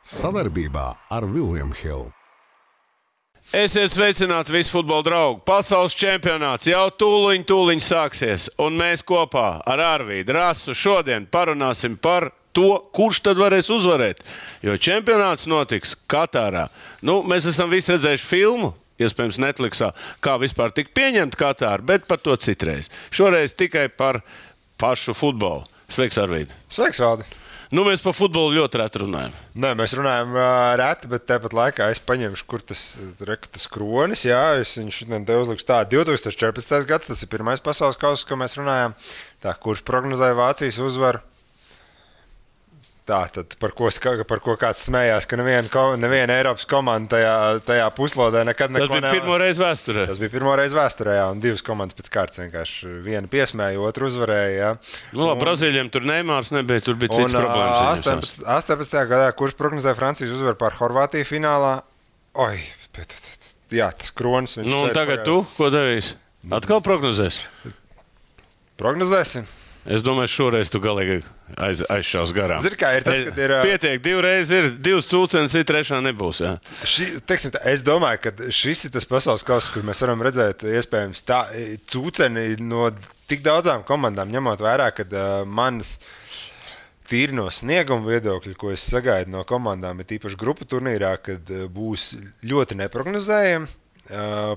Savarbībā ar William Hill. Esiet sveicināti visi futbola draugi. Pasaules čempionāts jau tūliņ sāksies. Un mēs kopā ar Arvīdu Rasu šodien parunāsim par to, kurš tad varēs uzvarēt. Jo čempionāts notiks Katārā. Mēs esam visi redzējuši filmu, iespējams Netflixā, kā vispār tika pieņemta Katāra, bet par to citreiz. Šoreiz tikai par pašu futbolu. Sveiks, Arvīd. Sveiks, Valdi. Mēs par futbolu ļoti reti runājam. Nē, mēs runājam reti, bet tāpat laikā es paņemšu, kur tas kronis. Jā, es viņu šodien te uzlikšu tā. 2014. gads, tas ir pirmais pasaules kauss, ko mēs runājam. Tā, kurš prognozēja Vācijas uzvaru. Tā, tad par ko kāds smējās, ka neviena Eiropas komanda tajā puslodē nekad neko nevar. Tas bija pirmo reizi vēsturē. Tas bija pirmo reizi vēsturē, jā, un divas komandas pēc kārtas vienkārši viena piesmēja, otru uzvarēja. Jā. Brazīļiem tur Neimārs nebija, tur bija cits problēmas. 18. gadā, kurš prognozēja Francijas uzvaru pār Horvātiju finālā? Jā, tas kronis. Un tagad tu, ko darīsi? Atkal prognozēs? Prognozēsim. Es domāju, šoreiz tu galīgi aizšaus garām. Zini, kā ir tas, kad ir... Pietiek, divreiz ir, divas cūcenes ir, trešā nebūs, jā. Es domāju, ka šis ir tas pasaules kauss, kur mēs varam redzēt, iespējams, tā cūceni no tik daudzām komandām, ņemot vērā, kad manas tīri no snieguma viedokļa, ko es sagaidu no komandām, ir tīpaši grupu turnīrā, kad būs ļoti neprognozējami.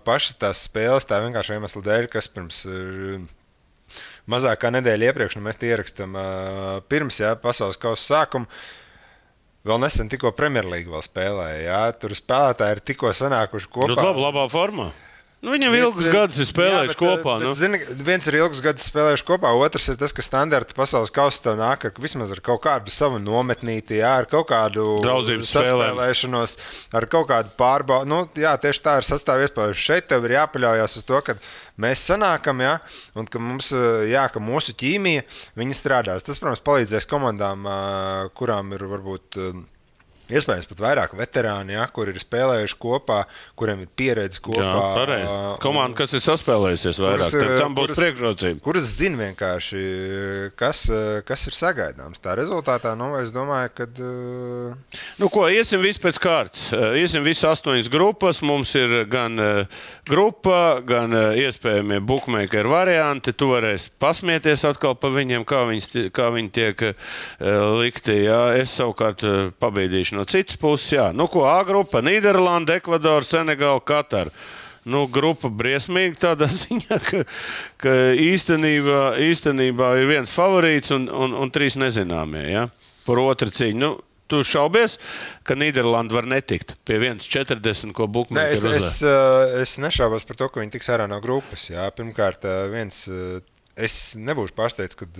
Pašas tās spēles, tā vienkārši iemesla dēļ, kas pirms... Mazāk kā nedēļa iepriekš, mēs tie ierakstām pirms pasaules kausa sākuma. Vēl nesen tikko Premjerlīga vēl spēlēja. Jā. Tur spēlētāji ir tikko sanākuši kopā. Labā formā. Viņam ilgus gadus ir spēlējuši kopā. Zini, viens ir ilgus gadus spēlējuši kopā, otrs ir tas, ka standarta pasaules kausa tev nāk vismaz ar kaut kādu savu nometnīti, jā, ar kaut kādu draudzības saspēlēšanos, ar kaut kādu pārbaudu. Tieši tā ir sastāv iespējas. Šeit tev ir jāpaļaujas uz to, ka mēs sanākam, jā, un ka mums, ka mūsu ķīmija, viņi strādās. Tas, protams, palīdzēs komandām, kurām ir varbūt... Iespējams pat vairāk veterāni, kur ir spēlējuši kopā, kuriem ir pieredze kopā. Jā, pareizi. Komanda, kas ir saspēlējusies vairāk, tam būs priekšrocība. Kuras zina vienkārši, kas ir sagaidāms. Tā rezultātā, es domāju, kad... Iesim visi pēc kārtas. Iesim visi 8 grupas. Mums ir gan grupa, gan iespējamie bookmaker varianti. Tu varēsi pasmieties atkal pa viņiem, kā viņi tiek likti. Jā. Es savukārt pabīdīšu no citas puses, jā. A grupa, Nīderlanda, Ekvadora, Senegāla, Katara. Grupa briesmīga tādā ziņā, ka īstenībā ir viens favorīts un 3 nezināmie, jā. Par otru cīņu. Tu šaubies, ka Nīderlanda var netikt pie 1,40, ko bookmaker uzvar? Es nešaubos par to, ka viņi tiks ārā no grupas, jā. Pirmkārt, es nebūšu pārsteigts, kad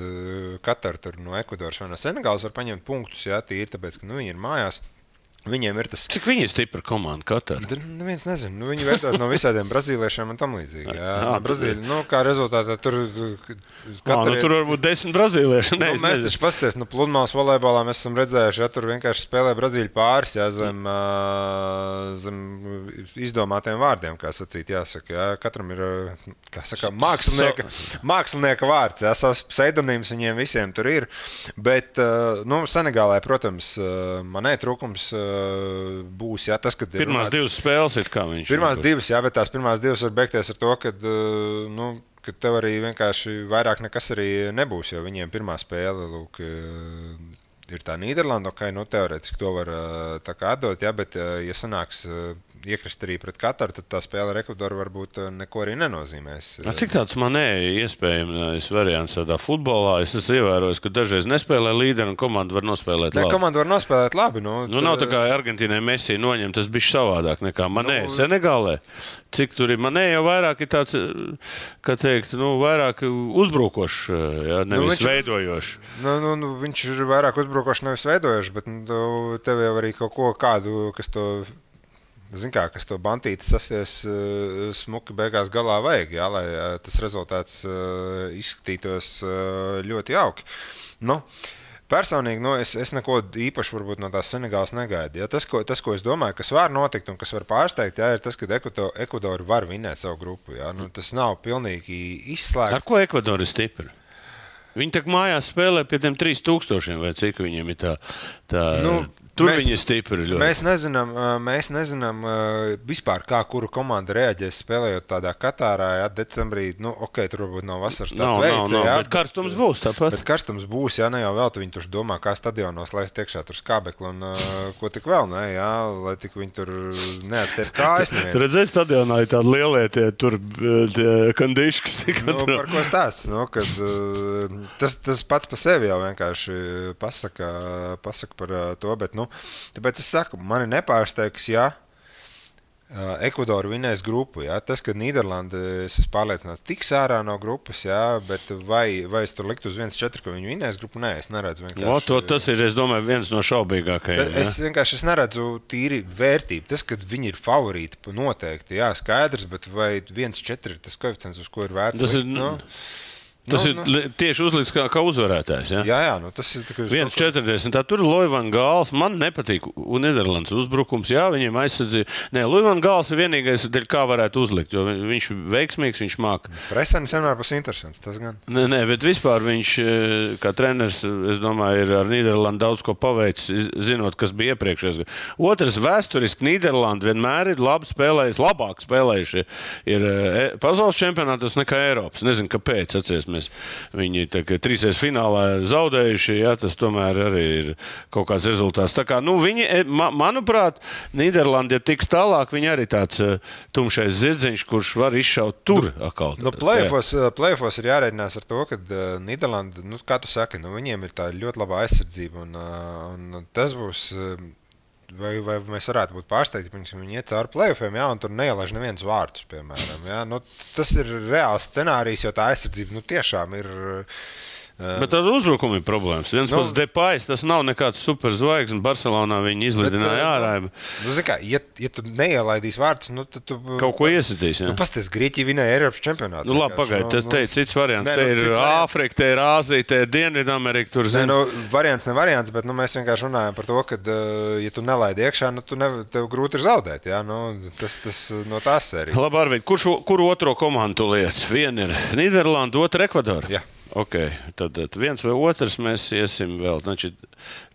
Katara tur no Ekvadoras vai no Senegālas var paņemt punktus, jā, tīri, tāpēc, ka viņi ir mājās. Viņiem ir tas... Cik viņi ir stipra komanda, Katara? Neviens nezina. Viņi vērtās no visādiem brazīliešiem un tam līdzīgi. Jā. Brazīļi, kā rezultātā tur... Tur varbūt 10 brazīlieši. Mēs taču pasties, pludmales volejbolā mēs esam redzējuši, ja tur vienkārši spēlē Brazīļu pāris, jā, zem izdomātiem vārdiem, kā sacīt, jāsaka. Jā. Katram ir, kā saka, mākslinieka vārds, jā, savs pseidonīms viņiem visiem tur ir. Bet, Senegālē, protams, manē trūkums būs, jā, tas, kad... Pirmās 2 spēles ir kā viņš. Pirmās 2, jā, bet tās pirmās 2 var beigties ar to, kad tev arī vienkārši vairāk nekas arī nebūs, jo viņiem pirmā spēle, ir tā Nīderlanda, teorētiski to var tā kā atdot, jā, bet ja sanāks iekrist arī pret Kataru, tad tā spēle ar Ekvadoru varbūt neko arī nenozīmēs. Cik tāds manē iespējams variants tādā futbolā? Es esmu ievērojis, ka dažreiz nespēlē līderi un komanda var nospēlēt labi. Komanda var nospēlēt labi. Nav tā kā Argentīnai Messi noņem, tas bišķi savādāk nekā manē. Senegālē, cik tur ir manē, jau vairāk ir tāds, kā teikt, vairāk uzbrukošs, jā, nevis veidojošs. Viņš ir vairāk uzbrukošs, nevis veidojošs, bet tev jau arī kaut ko kādu, kas to bantīti sasies smuki beigās galā vajag, jā, lai tas rezultāts izskatītos ļoti jauki. Personīgi, es neko īpaši varbūt no tās Senegālas negaidu. Ja, tas, ko es domāju, kas var notikt un kas var pārsteigt, jā, ir tas, ka Ekvadora var vinēt savu grupu. Jā. Tas nav pilnīgi izslēgts. Ar ko Ekvadora ir stipra? Viņi tak mājās spēlē pie tiem 3000, vai cik viņiem ir tā Tur viņi ir stipri ļoti. Mēs nezinām vispār, kā kura komanda reaģēs spēlējot tādā Katārā, jā, decembrī. Nu, tur varbūt nav vasaras tāds veids. Bet karstums būs tāpat. Bet karstums būs, jā, ne jau vēl, viņi tur domā, kā stadionos laist iekšā tur skābekli un ko tik vēl, ne, jā, lai tik viņi tur neatstiep kājas neviens. Tu redzēji stadionā ir tādi lielie tie kandiškas. Par ko stāsts, kad tas pats pa sevi jau vienkārši pasaka par to, bet, tāpēc es saku, mani nepārsteigs, ja Ekvadora vinēs grupu, ja? Tas, ka Nīderlanda, es esmu pārliecināts, tiks ārā no grupas, ja? Bet vai es tur liktu uz 1-4, ka viņi vinēs grupu? Nē, es neredzu vienkārši. Tas ir, es domāju, viens no šaubīgākajiem. Es neredzu tīri vērtību. Tas, ka viņi ir favorīti, noteikti, jā, skaidrs, bet vai 1-4 ir tas koeficients, uz ko ir vērts? Tas ir tieši uzlikts kā uzvarētājs. Ja? Jā, tas ir 1,40. Tur ir Loivan Gāls. Man nepatīk Nīderlandes uzbrukums. Jā, viņiem aizsardzīja. Nē, Loivan Gāls ir vienīgais, kā varētu uzlikt, jo viņš ir veiksmīgs, viņš māk. Presenis vienmēr būs interesants, tas gan. Nē, bet vispār viņš, kā treneris, es domāju, ir ar Nīderlandu daudz ko paveicis, zinot, kas bija iepriekšējais. Otrs, vēsturiski Nīderlanda vienmēr ir labi spēlējuši, labāk spēlējuši ir pasaules čempionātos nekā Eiropas. Nezinu, kāpēc, atceries. Viņi trīsreiz finālā zaudējuši, jā, tas tomēr arī ir kaut kāds rezultāts. Tā kā, viņi, manuprāt, Nīderlanda, ja tiks tālāk, viņi arī tāds tumšais zirdziņš, kurš var izšaut tur atkal. Play-offos ir jārēķinās ar to, ka Nīderlanda, kā tu saki, viņiem ir tā ļoti labā aizsardzība un tas būs... Vai mēs varētu būt pārsteigti, ka viņi iet cauri play-offiem, ja, un tur neielaiž neviens vārtus, piemēram. Ja. Tas ir reāls scenārijs, jo tā aizsardzība tiešām ir... Bet tad uzbrukumi ir problēmas. Viens pats Depais, tas nav nekāds superzvaigznes. Barcelonā viņi izlidināja ārā. Ja tu neielaidīsi vārtus, tad tu... Kaut ko iesitīs, jā. Pasties, Grieķija vinēja Eiropas čempionātu. Labi, pagaid, te ir cits variants. Te ir Āfrika, te ir Āzija, te ir Dienvidamerika. Tur, variants ne variants, bet mēs vienkārši runājam par to, ka, ja tu nelaidi iekšā, tev grūti ir zaudēt, jā. Tas no tās sērijas. Labi, Arvid, kuru otro komandu liec? Viena ir Nīderlanda, otra Ekvadora. Jā. Ok, tad viens vai otrs mēs iesim vēl. Znači,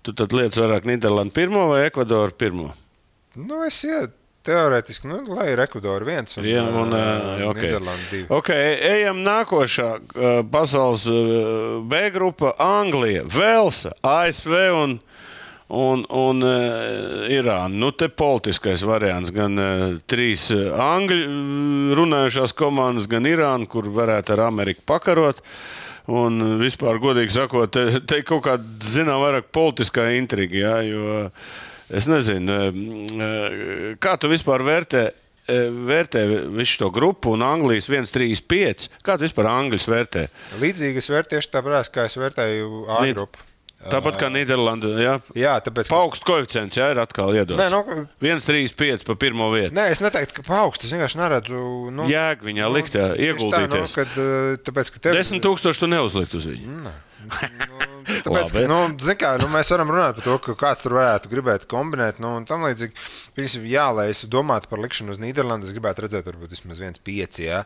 tu tad liec vairāk Nīderlandu pirmo vai Ekvadoru pirmo? Es ietu teorētiski, lai ir Ekvadora viens un Nīderlanda divi. Ok, ejam nākošā pasaules B grupa Anglija, Velsa, ASV un Irāna. Te politiskais variants, gan trīs angļu runājušās komandas, gan Irāna, kur varētu ar Ameriku pakarot. Un vispār, godīgi sakot, te kaut kāda, vairāk politiskā intriga, jā, jo es nezinu, kā tu vispār vērtē visu to grupu un Anglijas 1-3-5? Kā tu vispār Angļus vērtē? Līdzīgi es vērtēšu tāpēc, kā es vērtēju A grupu. Tāpat kā Nīderlanda, jā? Jā, tāpēc... Paugsts koeficients, jā, ir atkal iedots. 1-3-5 pa pirmo vietu. Nē, es neteiktu, ka paugsts, es vienkārši neredzu... Jēg viņā likt, ieguldīties. Tāpēc, ka 10,000 tu neuzlikt uz viņu. Nē. Tāpēc, ka, mēs varam runāt par to, ka kāds tur varētu gribēt kombinēt, un tam līdzīgi, lai es domātu par likšanu uz Nīderlandu, es gribētu redzēt varbūt vismaz 1-5, jā.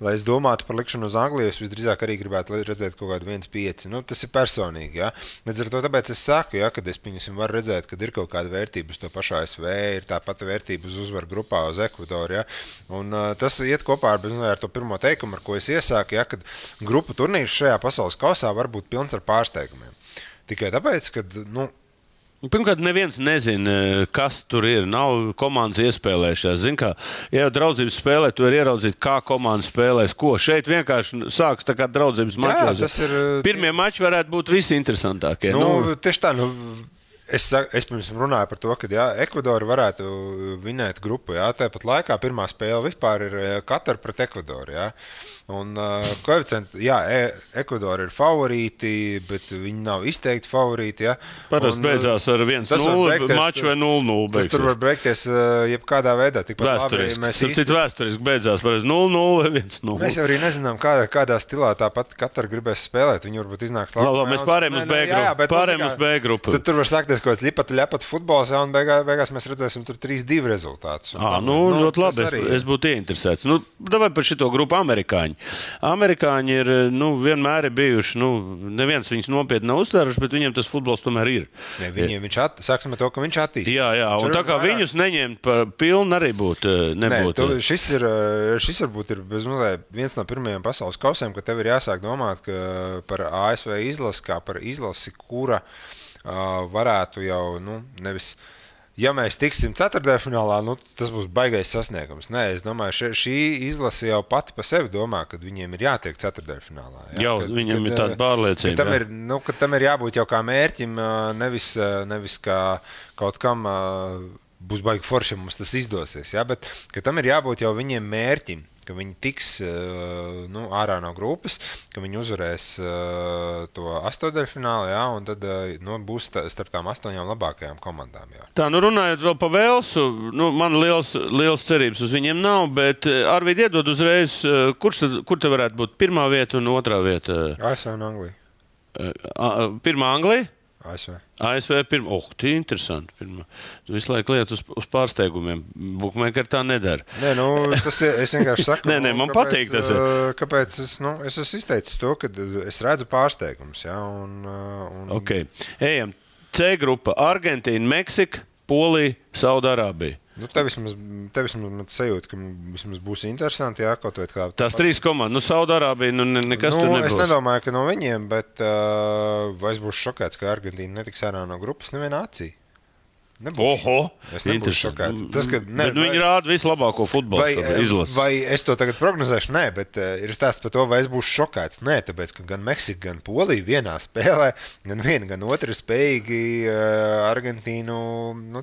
Lai es domātu par likšanu uz Angliju, es visdrīzāk arī gribētu redzēt kaut kādu 1-5. Tas ir personīgi, jā. Līdz ar to tāpēc es saku, jā, kad es varu redzēt, kad ir kaut kāda vērtība uz to pašu ASV, ir tā pati vērtība uz uzvaru grupā uz Ekvadoru, jā. Un tas iet kopā ar to pirmo teikumu, ar ko es iesāku, jā, kad grupu turnīrs šajā pasaules kausā var būt pilns ar pārsteigumiem. Tikai tāpēc, ka, Pirmkārt, neviens nezina, kas tur ir. Nav komandas iespēlējušās. Zini, kā, ja jau draudzības spēlē, tu vari ieraudzīt, kā komanda spēlēs ko. Šeit vienkārši sāks tā kā draudzības mačos. Pirmie mači varētu būt visinteresantākie. Tieši tā, Es pirms runāju par to, ka Ekvadora varētu vinēt grupu. Jā, tāpat laikā pirmā spēle vispār ir Katara pret Ekvadoru. Jā. Un koeficienti, Ekvadora ir favorīti, bet viņi nav izteikti favorīti. Parasti beidzās ar 1-0 maču vai 0-0. Tas tur var beigties jebkādā veidā. Vēsturiski beidzās par 0-0 vai 1-0. Mēs jau arī nezinām, kādā stilā tāpat Katara gribēs spēlēt. Viņi varbūt iznāks labi. Mēs pārējām uz B grupu. Tad tur var sākties notiks kaut kāds ļapat futbols, un beigās mēs redzēsim tur 3-2 rezultātus. Ļoti labi. Es būtu ieinteresēts. Davai par šito grupu amerikāņi. Amerikāņi ir, vienmēr ir bijuši, neviens viņus nopietni nav uztvēruši, bet viņiem tas futbols tomēr ir. Ne, sāksim ar to, ka viņš attīstās. Jā, un tā kā viņus neņemt par pilnu arī nebūtu. Šis varbūt ir viens no pirmajiem pasaules kausiem, ka tev ir jāsāk domāt par ASV izlasi, kā par izlasi, kura varētu jau, nevis, ja mēs tiksim ceturtdaļfinālā, tas būs baigais sasniegums. Nē, es domāju, šī izlase jau pati pa sevi domā, ka viņiem ir jātiek ceturtdaļfinālā. Jā, viņam ir tāda pārliecība. Ka tam ir jābūt jau kā mērķim, nevis kā kaut kam būs baigi forši, mums tas izdosies. Ja? Bet ka tam ir jābūt jau viņiem mērķim, ka viņi tiks ārā no grupas, ka viņi uzvarēs to astotdaļfinālu, ja? Un tad būs starp tām 8 labākajām komandām. Jā. Tā, runājot vēl par Velsu, man liels cerības uz viņiem nav, bet Arvīd iedod uzreiz, kur te varētu būt pirmā vieta un otrā vieta? ASV un Anglija. Pirmā Anglija? ASV pirmā. Tie ir interesanti. Tu visu laiku liet uz pārsteigumiem. Bookmaker tā nedara. Nē, tas es vienkārši saku. Nē, man patīk tas. Kāpēc es esmu izteicis to, ka es redzu pārsteigumus. Ja, Ok. Ejam. C grupa. Argentīna, Meksika, Polija, Saudārābija. Te vismaz sajūta, ka vismaz būs interesanti, jā, kaut vai kā. Tās 3 komandas, Saudārābija, nekas tur nebūs. Es nedomāju, ka no viņiem, bet vai es būšu šokēts, ka Argentīna netiks ārā no grupas nevienā acī. Oho! Es nebūšu šokēts. Viņi rāda vislabāko futbolu izlasi. Vai es to tagad prognozēšu? Nē, bet ir stāsts par to, vai es būšu šokēts. Nē, tāpēc, ka gan Meksika, gan Polija vienā spēlē, gan viena, gan otra ir spējīgi Argentīnu.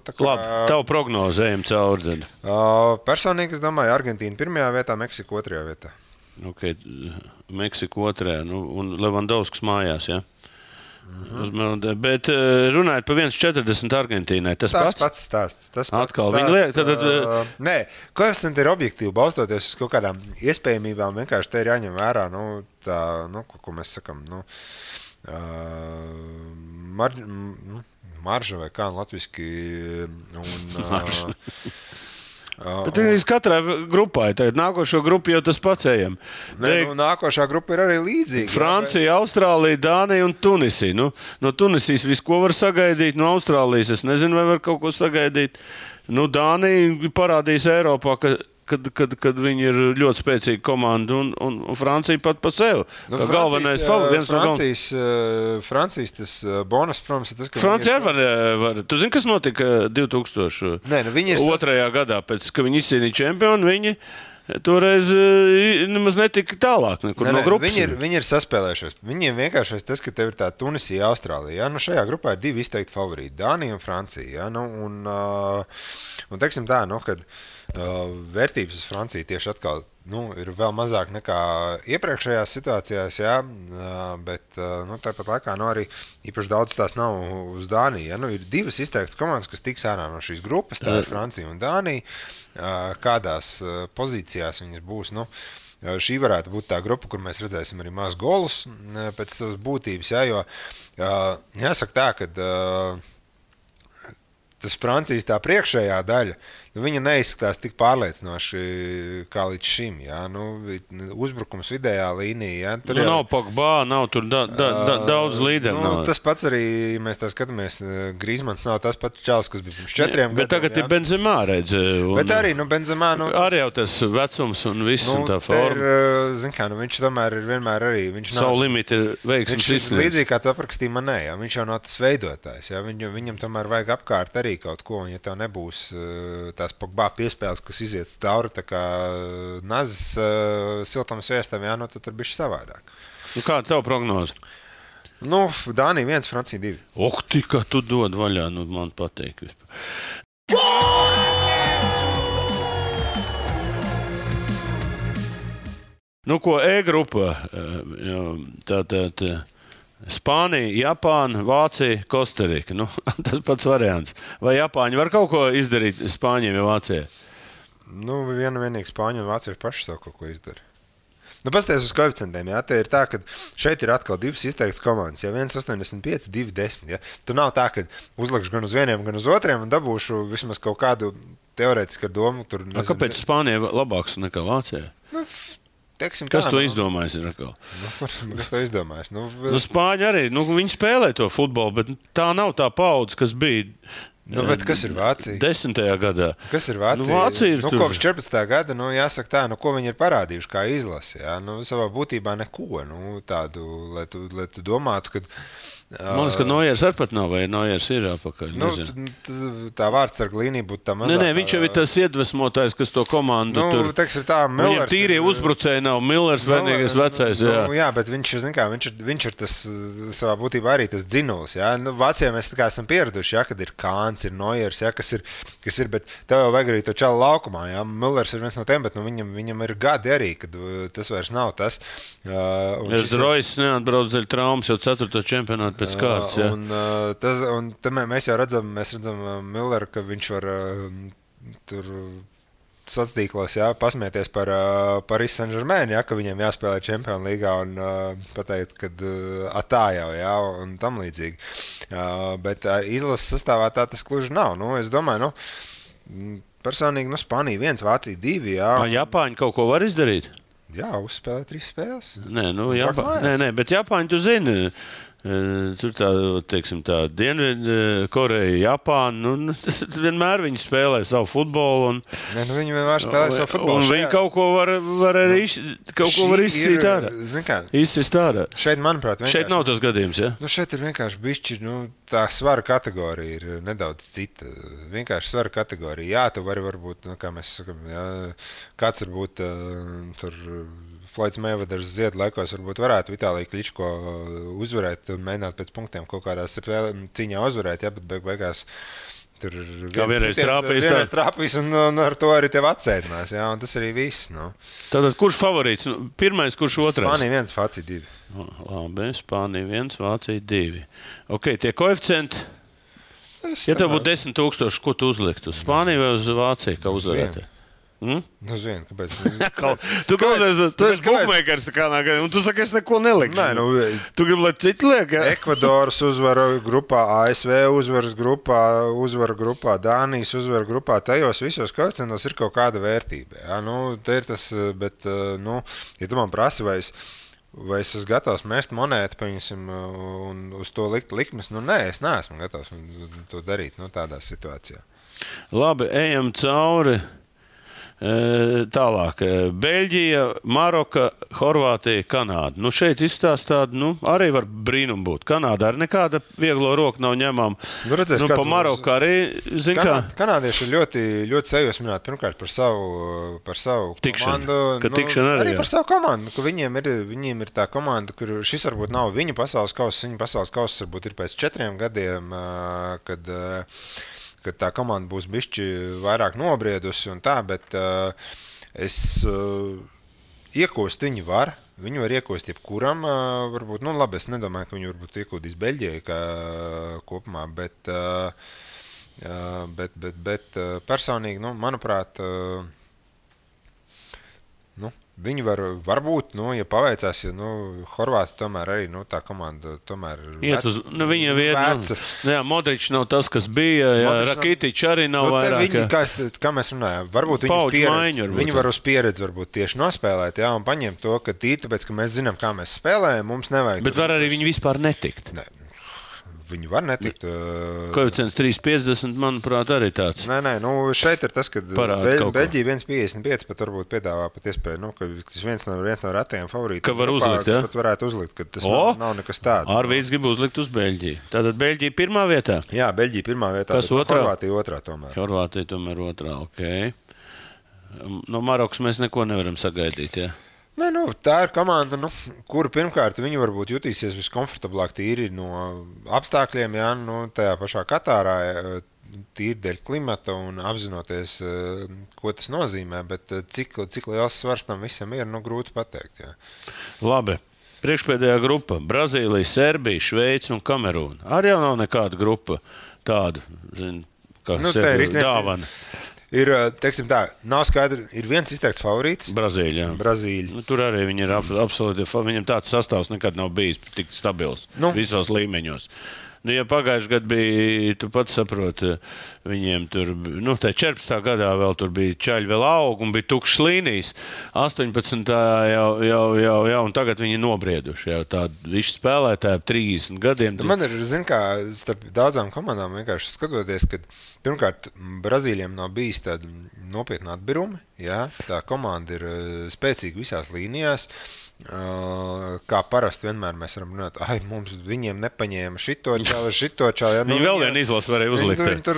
Labi, tavu prognozi ejam cauri. Personīgi es domāju, Argentīna pirmajā vietā, Meksika otrajā vietā. Ok, Meksika otrajā, un Levandovskis mājās, jā? Bet runājot par 1,40 Argentīnai, tas pats stāsts. Atkal viņi liek. Nē, koeficienti ir objektīvi, balstoties uz kaut kādām iespējamībām. Vienkārši te ir jāņem vērā, ko mēs sakam, marža vai kā latviski. Bet katrai grupai, tagad nākošo grupu jau tas pats ejam. Nākošā grupa ir arī līdzīga. Francija, Austrālija, Dānija un Tunisija. No Tunisijas visu, ko var sagaidīt, no Austrālijas es nezinu, vai var kaut ko sagaidīt. Dānija parādīs Eiropā, kad viņi ir ļoti spēcīga komanda, un Francija pat pa sevi. Galvenais favorīts. Francijas tas bonus, protams, ir tas, ka Francija var. Tu zini, kas notika 2002. Gadā, pēc, ka viņi izcīnīja čempionu, viņi toreiz nemaz netika tālāk no grupas. Viņi ir saspēlējušies. Viņiem vienkārši tas, ka tev ir tā Tunisija, Austrālija. Ja? Šajā grupā ir 2 izteikti favorīti, Dānija un Francija. Ja? Un teiksim tā, kad vērtības uz Franciju tieši atkal ir vēl mazāk nekā iepriekšējās situācijās, jā, bet tāpat laikā arī īpaši daudz tās nav uz Dāniju. Ja? Ir 2 izteiktas komandas, kas tiks ārā no šīs grupas, tā ir Francija un Dānija. Kādās pozīcijās viņas būs? Šī varētu būt tā grupa, kur mēs redzēsim arī maz golus pēc savas būtības, jā, jo jāsaka tā, ka tas Francijas tā priekšējā daļa, viņa neizskatās tik pārliecinoši kā līdz šim. Ja? Uzbrukums vidējā līnijā. Ja? Nav Pogba, nav tur daudz līderu. Tas pats arī, ja mēs tā skatāmies, Griezmanns nav tas pats čalis, kas bija pirms 4 gadiem. Bet tagad ir Benzemā, redz. Bet arī, Benzemā. Arī jau tas vecums un viss un tā forma. Viņš tomēr ir vienmēr arī. Savu limitu ir veiksmes izsniedz. Līdzīgi kā tu aprakstīji Manē, ja? Viņš jau nav tas veidotājs. Ja? Viņam tomēr vajag apkārt arī kaut ko, un ja tev nebūs tās Pogba piespēles, kas iziet cauri tā kā nazis siltam sviestam, jā, tad tur bišķi savādāk. Kāda tev prognoze? Dānija 1, Francija 2. Kā tu dod vaļā, man pateik vispār. E-grupa, tātad Spānija, Japāna, Vācija, Kostarika. Tas pats variants. Vai Japāņi var kaut ko izdarīt Spāņiem vai Vācijai? Vienīgi Spāņi un Vācija paši savu kaut ko izdara. Nu, pasties uz koeficientiem, jā, te ir tā, ka šeit ir atkal divas izteiktas komandas, ja 1,85, 2,10, ja. Tu nav tā, ka uzlikšu gan uz vieniem, gan uz otriem un dabūšu vismaz kaut kādu teorētisku domu. Tur, nezinu, kāpēc Spānija labāks nekā Vācijā? Nu, teiksim, kas tā, to izdomājis? Kas to izdomājis? Spāņi arī, viņi spēlē to futbolu, bet tā nav tā paudze, kas bija. Bet kas ir Vācija? 10. gadā. Kas ir Vācija? Vācija ir kopš 14. gada, jāsaka tā, ko viņi ir parādījuši kā izlase. Jā? Savā būtībā neko tādu, lai tu domātu, ka... Man liekas, ka Nojers arī pat nav, vai Nojers ir apakaļ. Tā vārdsarga līnija būtu tā mazāk. Nē, viņš jau ir tas iedvesmotājs, kas to komandu tur... Teiksim tā, Millers... Viņam tīrie uzbrucēji nav, Millers vienīgais vecais, jā. Jā, bet viņš ir tas savā būtībā arī tas dzinulis, jā. Vācijā mēs tā kā esam pieraduši, jā, kad ir Kāns, ir Nojers, jā, kas ir, bet tev jau vajag arī to čalu laukumā, jā. Millers ir viens no tiem, bet viņam ir gadi arī, kad tas vairs nav tas. Rojas neatbrauc dēļ traumas jau 4. čempionātu pēc kārtas, jā. Un mēs jau redzam Milleru, ka viņš var tur sociālos tīklos pasmieties par Paris Saint-Germain, ka viņiem jāspēlē Champions līgā un pateikt, ka tā jau, un tam līdzīgi. Bet izlases sastāvā tā tas gluži nav. Es domāju, personīgi Spānija 1, Vācija 2, jā. Japāņi kaut ko var izdarīt? Jā, uzspēlē 3 spēles. Nē, bet Japāņi, tu zini, tur tā Dienvidkoreja, Japāna, vienmēr viņi spēlē savu futbolu. Viņi vienmēr spēlē savu futbolu. Un viņi kaut ko var arī izsist ārā. Šeit, manuprāt, šeit nav tas gadījums, ja? Šeit ir vienkārši bišķi, tā svara kategorija ir nedaudz cita. Vienkārši svara kategorija. Jā, tu vari varbūt, kā mēs sakam, kāds varbūt tur... Floyds Mayweathers Ziedu laikos varbūt varētu Vitāliju Kličko uzvarēt un mēģināt pēc punktiem kaut kādā cīņā uzvarēt, bet beigās tur vienreiz trāpīs un ar to arī tev atsēdinās, un tas arī viss. Tātad kurš favorīts? Pirmais, kurš otrais? Spānija 1, Vācija 2. Labi, Spānija 1, Vācija 2. Ok, tie koeficienti? Ja tev būtu 10,000, ko tu uzliktu? Uz Spāniju vai uz Vāciju, kā uzvarētāji? Zinu, kāpēc. Tu esi bookmakers, un tu saki, es neko nelikšu. Tu gribi, lai citi liek? Ekvadoras uzvara grupā, ASV uzvaras grupā, uzvara grupā, Dānijas uzvara grupā. Tajos visos koeficientos ir kaut kāda vērtība. Te ir tas, bet, ja tu man prasi, vai es esmu gatavs mest monētu, paņemsim, un uz to likt likmes, nē, es neesmu gatavs to darīt tādā situācijā. Labi, ejam cauri. Tālāk, Beļģija, Maroka, Horvātija, Kanāda. Šeit izstāst tādu, arī var brīnum būt. Kanāda arī nekāda vieglo roku nav ņemama. Pa Maroku arī, kā? Kanādieši ir ļoti, ļoti sajūsmināti pirmkārt par savu komandu. Arī par savu komandu, ka viņiem ir tā komanda, kur šis varbūt nav viņu pasaules kauss, viņu pasaules kauss varbūt ir pēc 4 gadiem, kad tā komanda būs bišķi vairāk nobriedusi un tā, bet es iekūst viņi var. Viņu var iekūst jebkuram, varbūt, labi, es nedomāju, ka viņi varbūt iekūdīs Beļģijai kā kopumā, bet personīgi, manuprāt, viņi varbūt, ja paveicās, Horvāti tomēr arī, tā komanda tomēr viņa veca. Modričs nav tas, kas bija, Rakitičs arī nav vairāk. Viņi, kā mēs runājām, varbūt viņi var uz pieredzi varbūt tieši nospēlēt, un paņemt to, ka tāpēc, ka mēs zinām, kā mēs spēlējam, mums nevajag. Bet var arī viņi vispār netikt. Ne. Viņi var netikt. Koeficients 3,50, manuprāt, arī tāds. Nē, šeit ir tas, ka Beļģija 1,55 pat varbūt piedāvā pat iespēju, ka tas viens no retajiem favorītiem. Ka var uzlikt, ja? Pat varētu uzlikt, ka tas nav nekas tāds. Arvīds grib uzlikt uz Beļģiju. Tātad Beļģija pirmā vietā? Jā, Beļģija pirmā vietā. Kas otrā? Horvātija otrā tomēr. Horvātija tomēr otrā, ok. No Marokas mēs neko nevaram sagaidīt, ja? Tā ir komanda, kura pirmkārt viņi varbūt jutīsies viskomfortablāk tīri no apstākļiem, tajā pašā Katārā, tīri dēļ klimata un apzinoties, ko tas nozīmē, bet cik liels svars tam visam ir, grūti pateikt. Jā. Labi. Priekšpēdējā grupa – Brazīlija, Serbija, Šveice un Kamerūna. Arī jau nav nekāda grupa tāda, kā dāvana. Ir, teiksim tā, nav skaidri, ir viens izteikts favorīts. Brazīļa. Brazīļa. Tur arī viņi ir absolūti, viņam tāds sastāvs nekad nav bijis tik stabils visos līmeņos. Ja pagājušajā gadā bija, tu pats saproti, viņiem tur, tā 14. gadā vēl tur bija čaļi vēl aug un bija tukšs līnijas. 18. jau, un tagad viņi nobrieduši. Jau tādi viši spēlētāji 30 gadiem. Man ir, kā starp daudzām komandām vienkārši skatoties, ka pirmkārt Brazīļiem nav bijis tāda nopietna atbirumi. Ja? Tā komanda ir spēcīga visās līnijās. Kā parasti vienmēr mēs varam runāt, viņiem nepaņēma šito čālu. Ja, viņi vēl vienu izlasu varēja uzlikt. Viņi tur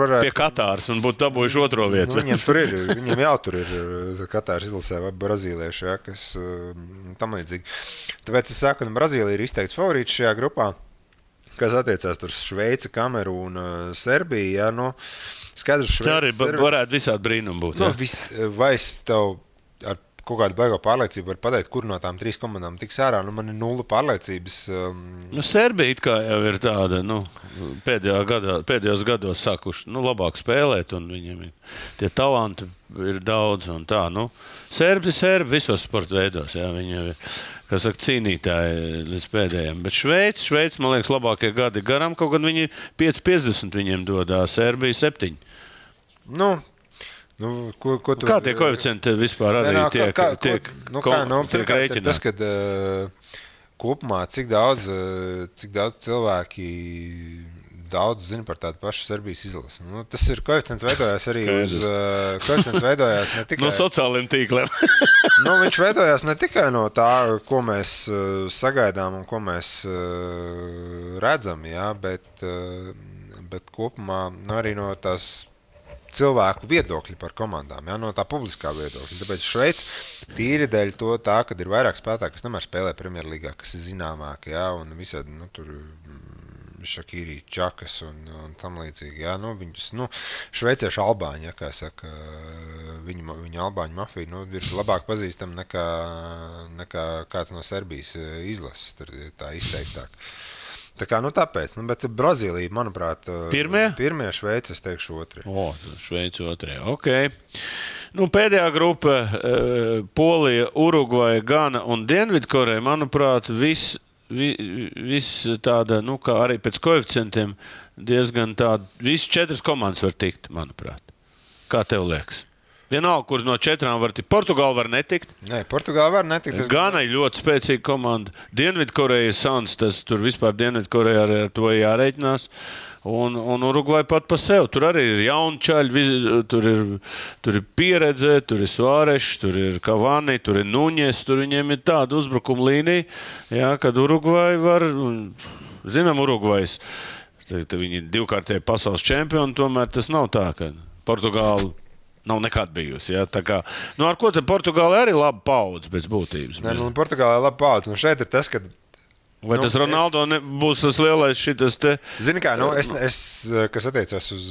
varētu. Pie Katāras un būtu dabūjuši otro vietu. Viņiem jau tur ir Katāras izlasē vai brazīlieši, ja, kas tam līdzīgi. Tāpēc es saku, ka Brazīlija ir izteikts favorīts šajā grupā, kas attiecās tur Šveice, Kamerūna, Serbija. Ja, skaidrs, Šveice, tā arī varētu visādi brīnumi būt. Vai es tev ar kaut kādu baigo pārliecību var pateikt, kur no tām 3 komandām tiks ārā. Man ir 0 pārliecības. Serbija it kā jau ir tāda, pēdējos gados sākuši labāk spēlēt, un viņiem tie talanti ir daudz. Un tā, Serbi visos sporta veidos. Jā, viņi ir, cīnītāji līdz pēdējiem. Bet Šveice, man liekas, labākie gadi garam, kaut gan viņi 5,50 viņiem dodā, Serbija 7. Kā tie koeficienti vispār arī tiek rēķināti? Tas, kad kopumā cik daudz cilvēki daudz zina par tādu pašu Serbijas izlasi. Tas ir koeficients veidojās arī koeficients veidojās ne tikai no sociāliem tīkliem. Viņš veidojās ne tikai no tā, ko mēs sagaidām un ko mēs redzam, jā, bet kopumā arī no tās cilvēku viedokļi par komandām, ja, no tā publiskā viedokļa. Tāpēc Šveice tīri dēļ tā, kad ir vairāk spēlētāji, kas nemēr spēlē Premjerlīgā, kas ir zināmāki, ja, un visādi, tur Šakīri, Čakas un tam līdzīgi, ja, viņus, šveiciešu albāņi, ja, kā saka, viņa albāņu mafija, ir labāk pazīstama nekā kāds no Serbijas izlases, tur tā izteiktāk. Tā kā, tāpēc, bet Brazīlija, manuprāt, pirmie, Šveice, es teikšu otrie. Šveice otrie, ok. Pēdējā grupa, Polija, Urugvaja, Gana un Dienvidkoreja, manuprāt, viss tāda, kā arī pēc koeficientiem, diezgan tāda, visas 4 komandas var tikt, manuprāt. Kā tev liekas? Vienalga, kur no 4 var tikt. Portugāla var netikt. Nē, Portugāla var netikt. Gana ir ļoti spēcīga komanda. Dienvidkoreja ir sans, tas tur vispār Dienvidkoreja ar to jārēķinās. Un Urugvaja pat pa sev. Tur arī ir jauni čaļi, tur ir pieredze, tur ir Suārešs, tur ir Cavani, tur ir Nuņes, tur viņiem ir tāda uzbrukuma līnija, jā, kad Urugvaja var, zinām, Urugvajas, viņi ir 2-kārtēji pasaules čempioni, tomēr tas nav tā, ka Portugāla nav nekad bijusi. Ja? Tā kā, ar ko te Portugāla arī laba paudze pēc būtības? Nē, Portugāla ir laba paudze. Šeit ir tas, ka vai tas Ronaldo būs tas lielais šitas te? Zini kā, es kas attiecās uz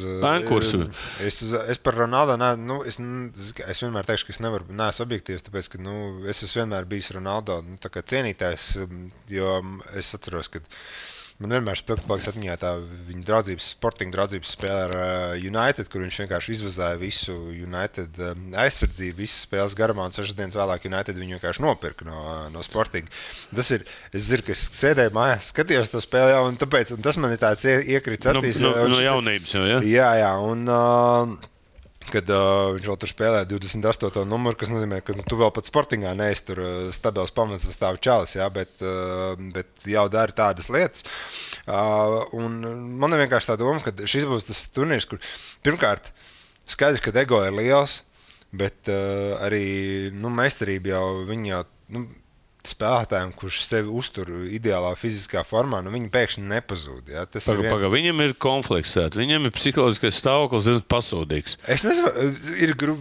kursu. Es par Ronaldo, es vienmēr teikšu, ka es neesmu objektīvs, tāpēc, ka es esmu vienmēr bijis Ronaldo tā kā cienītājs, jo es atceros, ka man vienmēr spilgtpaliks atmiņā tā viņa sportinga draudzības spēle ar United, kur viņš vienkārši izvazāja visu United aizsardzību, visas spēles garumā, un 6 dienas vēlāk United viņu vienkārši nopirka no sportinga. Tas ir, es zinu, ka es sēdēju mājās, skatījos to spēli jau, un tas man ir tāds iekrits acīs. No jaunības jau, ja? Jā, un kad viņš vēl tur spēlē 28. numuru, kas nozīmē, ka tu vēl pat sportingā neesi tur stabils pamats stāv čalis, jā, bet jau dari tādas lietas. Un man ir vienkārši tā doma, ka šis būs tas turnīrs, kur pirmkārt skaidrs, ka ego ir liels, bet arī meistarība jau viņi jau spēlētājiem, kurš sevi uztur ideālā fiziskā formā, viņi pēkšņi nepazūd. Ja? Viņam ir konflikts, viņam ir psiholoģiskais stāvoklis pasūdīgs. Es nezinu,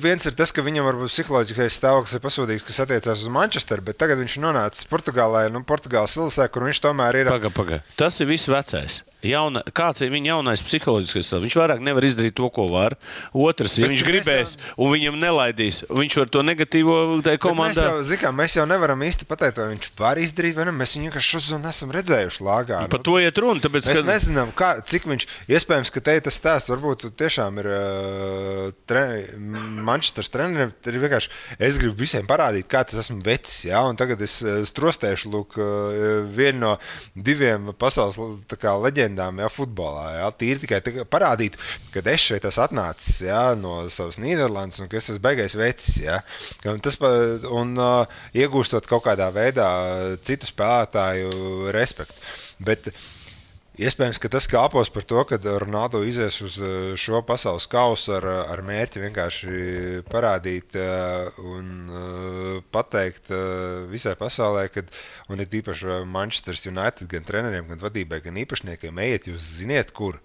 viens ir tas, ka viņam varbūt psiholoģiskais stāvoklis ir pasūdīgs, kas attiecās uz Manchesteru, bet tagad viņš nonāca Portugālē, Portugāles ilsē, kur viņš tomēr ir. Paga. Tas ir viss vecais. Kāds ir viņa jaunais psiholoģiskais stāvoklis? Viņš vairāk nevar izdarīt to, ko var. Otrs, ja viņš gribēs un viņam nelaidīs, viņš var to negatīvo komandā. Mēs jau nevaram īsti pateikt, zināt, vai viņš var izdarīt, vai ne. Mēs viņu vienkārši šodien esam redzējuši lāgā. Par to iet runa, tāpēc, mēs nezinām, cik viņš, iespējams, ka te tas stāsts varbūt tiešām ir Manchesteras treneriem, ir vienkārši, es gribu visiem parādīt, kā tas esmu vecis, ja, un tagad es strostēšu, lūk, vienu no 2 pasaules tā kā leģendām, ja, futbolā, ja, tīri tikai parādīt, kad es šeit esmu atnācis, ja, no savas Nīderlandes, un ka es esmu beigais vecis, ja, un iegūstot kaut kādā veidā citu spēlētāju respektu. Bet iespējams, ka tas kāpos par to, ka Ronaldo izies uz šo pasaules kausu ar mērķi vienkārši parādīt un pateikt visai pasaulē, un ir īpaši Manchester United gan treneriem, gan vadībai, gan īpašniekiem, ejiet, jūs ziniet, kur.